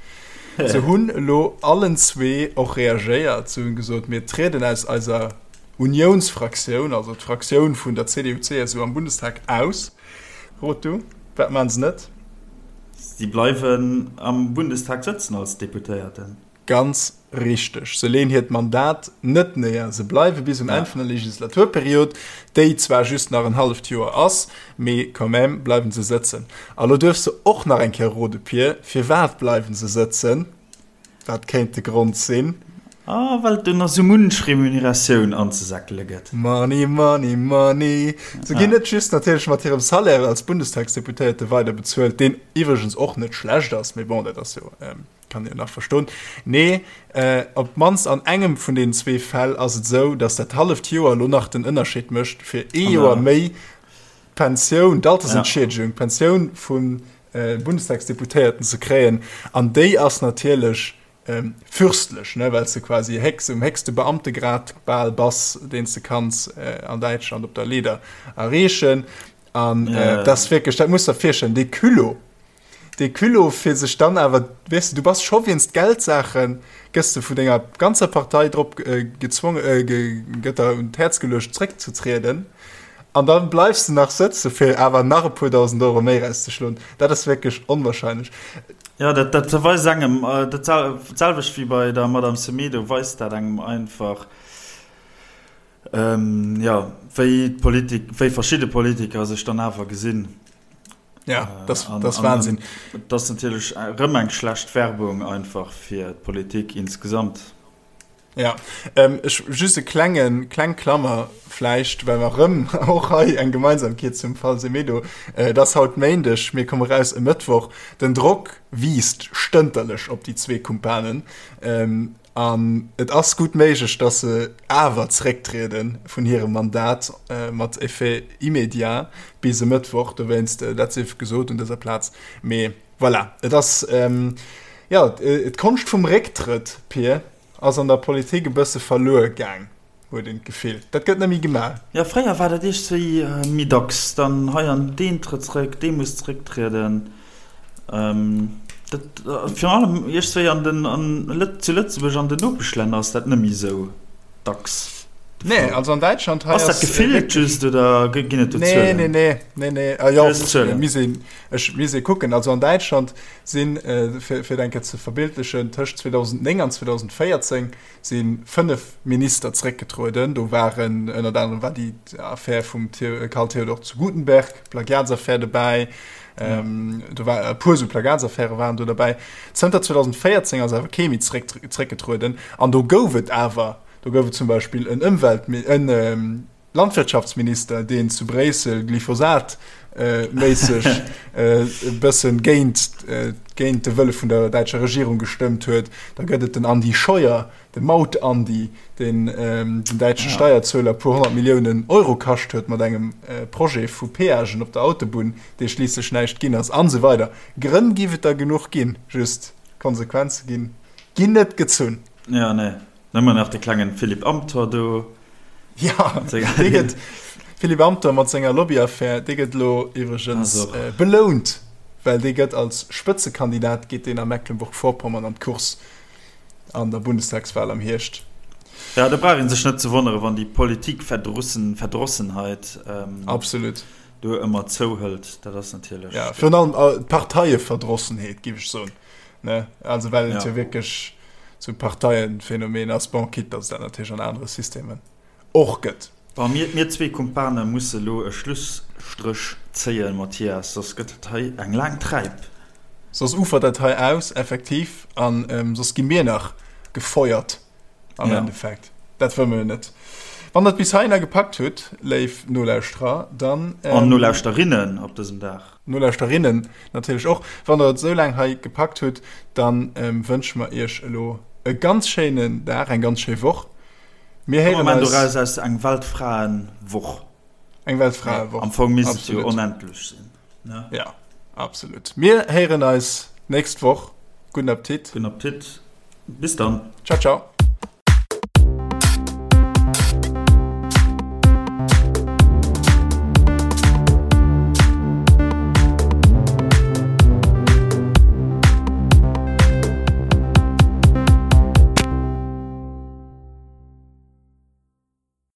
Speaker 1: Se hunn elo allen zwee och reagéiert. Se hunn gesot, mir trieden aus eiser Uniounsfraktioun, also d'Fraktioun vun der CDU-CSU am Bundestag, aus. Rot du, wat maachen se net?
Speaker 2: Si bleiwen am Bundestag sëtzen als Deputéierten.
Speaker 1: Ganz richteg. Se leeën hiert Mandat net néier. Se bleiwe bis um Enn vun der Legislaturperiod, déi zwar just nach en halleft Joer ass, mee quand même bleiwe se sëtzen. A lo duerfs de och nach eng Kéier rode, Pir, firwat bleiwe se sëtzen? Wat kéint de Grond sinn?
Speaker 2: Ah, well et do nach sou munch Remuneratioun anzesäckele gëtt.
Speaker 1: Money, money, money. Se ginn net just natierlech mat hirem Salaire als Bundestagsdeputéierte weider bezuelt, deen iwwregens och net schlecht ass, mee bon, dat ass jo Kann een nach verstoen. Nee, op d'mannst an engem vun deenen zwee Fäll ass et esou, datt dat halleft Joer elo nach den Ënnerscheed mécht, fir ee Joer méi d'Pensioun, d'Altersentschiedegung, d'Pensioun vum Bundestagsdeputéierten ze kréien. An déi ass natierlech fürstlech, ne, well s de quasi héchst, um héchste Beamtegrad bal bass, deen s de kanns an Däitschland op der Leeder erreechen. An dat ass wierklech, dat muss der virstellen, dee Culot, Dee Culot fir sech dann awer, weess de, du bass scho wéinst Geldsaachen, gëss de vun denger ganzer Partei drop gezwongen, gëtt der un d'Häerz geluecht zréckzetrieden an da bleifs de nach sëtze fir awer nach e puer 1.000 Euro méi erauszeschloen. Dat ass wierklech onwahrscheinlech.
Speaker 2: Jo, dat dat weist engem, dat selwecht wéi bei der Madame Semedo, weist dat engem einfach, jo, wéi d'Politik, wéi verschidde Politiker sech dann awer gesinn.
Speaker 1: Ja, das, das Wahnsinn.
Speaker 2: Dat ass natierlech erëm eng schlecht Werbung einfach fir d'Politik insgesamt.
Speaker 1: Ja, ähm, ech, just e klengen, kleng Klammer vläicht, well mer erëm och hei eng Gemeinsamkeet zum Fall Semedo. Äh, et ass haut Méindeg, mir komme raus e Mëttwoch. Den Drock wiisst stënterlech op déi zwee Kumpanen. Ähm, An et ass gutt méiglech, datt se awer zerécktriede vun hirem Mandat mat Effet immédiat bis e Mëttwoch. Dowéinst, dat sief gesot un dëser Plaz. Mee voilà, et ass, jo, d'Konscht vum Récktrëtt, Pir. ass an der Politik e bësse verluer gaang, huet een d'Gefill. Dat gëtt net méi gemaach.
Speaker 2: Jo, fréier war dat iergstwéi méi dacks. Dann hei an deen trëtt zréck, dee muss zrécktrieden. Dat, virun allem iergstwéi an den, an zu Lëtzebuerg an den Nopeschlänner ass dat net méi esou dacks
Speaker 1: de Fall. Nee, also an Däitschland
Speaker 2: hei ass. Ass dat gefillt just oder ginn et do
Speaker 1: Zuelen? Nee, nee, nee, nee, nee. Jo, misst een, ech misst ee kucken. Also an Däitschland sinn, fir et eng Kéier ze verbildlechen, tëscht 2009 an 2014 si 5 Minister zréckgetrueden. Do waren ënnert anerem war déi Affär vum Karl Theodor zu Guttenberg, Plagiatsaffär dobäi. Do war e puer esou Plagiatsaffäre waren do derbäi. Zënter 2014 ass awer kee méi zréckgetrueden. An do gouf et awer, do gouf et zum Beispill en Ëmwelt-, en Landwirtschaftsminister, deen zu Bréissel Glyphosat-méisseg e bëssen géint, géint de Wëlle vun der däitscher Regierung gestëmmt huet. Da gëtt et den Andi Scheuer, de Maut-Andi, deen den däitsche Steierzueler e puer 100 Milliounen Euro kascht huet mat engem Projet vu Peagen op der Autobunn, dee schliisslech näischt ginn ass, an esou weider. Grënn giff et der genuch ginn, just Konsequenze ginn, ginn net gezunn.
Speaker 2: Jo, nee. Nëmmen nach de klengen Philippe Amthor do.
Speaker 1: Ja, dee gëtt, Philippe Amthor mat senger Lobbyaffär, dee gëtt elo iwwregens belount, well dee gëtt als Spëtzekandidat geet deen a Mecklenburg-Vorpommern an d'Course an der Bundestagswahl am Hierscht.
Speaker 2: Ja, do brauch ee sech net ze wonneren, wann déi Politikverdrossenheit
Speaker 1: Absolut.
Speaker 2: do ëmmer zouhëlt. Dat ass natierlech.
Speaker 1: Ja, virun allem d'Parteieverdrossenheet, géif ech soen. Ne? Also well et jo wierklech sou Parteienphänomen ass, bon, quitte datt et dat natierlech an anere Systemen och gëtt.
Speaker 2: Bon, mir, mir zwee Kumpane musse lo e Schlusstréch zéien, Mathias, soss gëtt dat hei eng laang Träip.
Speaker 1: Soss ufert dat hei aus, effektiv, a soss gi mir nach gefeuert am Endeffekt. Dat wëlle mir jo net. Wann der et bis heihinner gepackt hutt, léif Nolauschterer, dann.
Speaker 2: An Nolauschterinnen op dësem Dag.
Speaker 1: Nolauschterinnen natierlech och. Wann der et esou laang hei gepackt hutt, dann wënsche mer iech elo e ganz schéinen Dag, eng ganz schéi Woch.
Speaker 2: Mir héieren eis. Doraus aus eng Weltfraenwoch.
Speaker 1: Eng Weltfraewoch.
Speaker 2: Am Fong misst et jo onendlech sinn,
Speaker 1: ne? Ja, absolut. Mir héieren eis nächst Woch. Gudden Appetit.
Speaker 2: Gudden Appetit. Bis dann.
Speaker 1: Ciao, ciao.